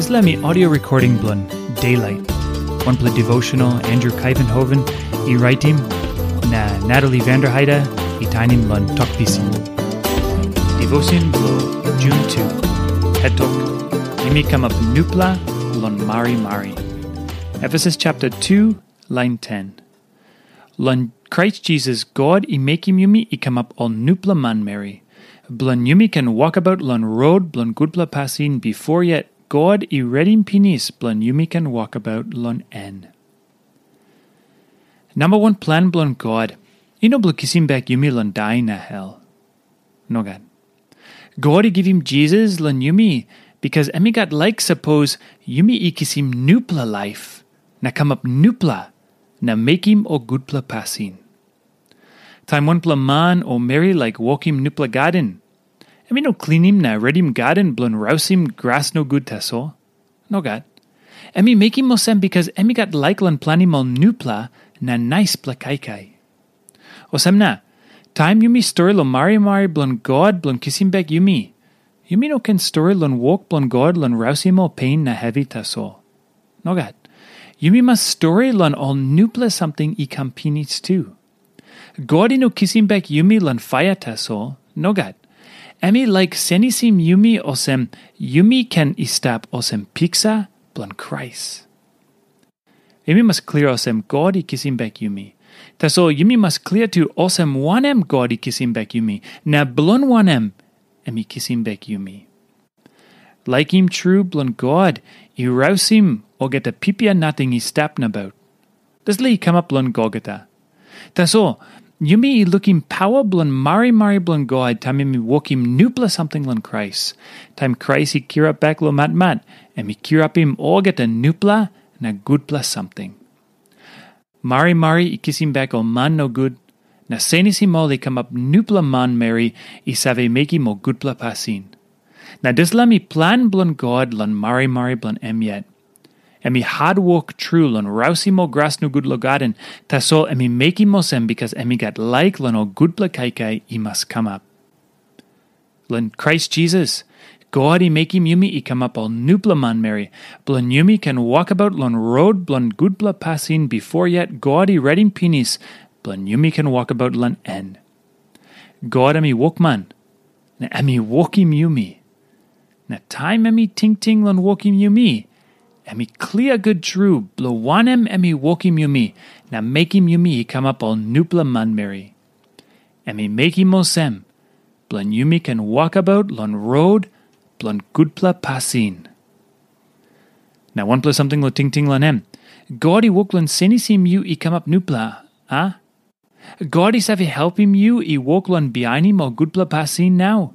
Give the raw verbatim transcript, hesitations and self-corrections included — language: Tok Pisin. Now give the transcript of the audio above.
Dispela mi audio recording bilong Daylight, wanpela devotional Andrew Kaivenhoven i raitim, na Natalie Vanderheide i tainim long Tok Pisin. Devotion bilong Jun tu. Het tok, yumi kamap nupela long marimari. Efesus chapter two, line ten. Long Krais Jisas God i mekim yumi i kamap ol nupela manmeri, bilong yumi ken wokabaut long rot bilong gutpela pasin bifor yet God i redim pinis bilong yumi ken wokabaut long en. Namba wan plan bilong God i no bilong kisim bek yumi long dai na hel. Nogat. God i givim Jisas long yumi, bikas em i gat laik sapos yumi i kisim nupela laip na kamap nupela na mekim ol gutpela pasin. Taim wanpela man o meri laik wokim nupela gaden, em i no klinim na redim gaden bilong rausim gras nogut tasol. Nogat. Em i mekim olsem bikas em i gat laik long planim ol nupela na naispela kaikai. Olsem na, taim yumi stori long marimari bilong God bilong kisim bek yumi, yumi no ken stori long wok bilong God long rausim ol pen na hevi tasol. Nogat. Yumi mas stori long ol nupela samting i kam pinis tu. God i no kisim bek yumi long paia tasol. Nogat. Em i laik senisim yumi olsem yumi ken i stap olsem piksa bilong Krais. Yumi mas klia olsem God i kisim bek yumi. Tasol yumi mas klia tu olsem wanem God i kisim bek yumi, na bilong wanem em i kisim bek yumi. Laikim tru bilong God i rausim olgeta pipia nating i stap nabaut. Dispela i kamap long Golgota. Tasol, yumi i lukim pawa bilong marimari bilong God taim em i wokim nupela samting long Krais. Taim Krais i kirap bek long matmat, em i kirapim olgeta nupela na gutpela samting. Marimari i kisim bek ol man nogut, na senisim ol i kamap nupela manmeri i save mekim ol gutpela pasin. Na dispela mi plan bilong God long marimari bilong em yet. Em i hatwok tru long rausim ol gras nogut long gaden, tasol em i mekim olsem bikas em i gat laik long ol gutpela kaikai i mas kamap. Long Krais Jisas, God i mekim yumi i kamap ol nupela manmeri, bilong yumi ken wokabaut long rot bilong gutpela pasin bifor yet God i redim pinis, bilong yumi ken wokabaut long en. God em i wokman, na em i wokim yumi. Na taim em i tingting long wokim yumi, em i klia gut tru bilong wanem em i wokim yumi na mekim yumi i kamap ol nupela manmeri. Em i mekim olsem, bilong yumi ken wokabaut long rot bilong gutpela pasin. Na wanpela samting long tingting long em, God i wok long senisim yu i kamap nupela, a? God i save helpim yu i wok long bihainim ol gutpela pasin nau.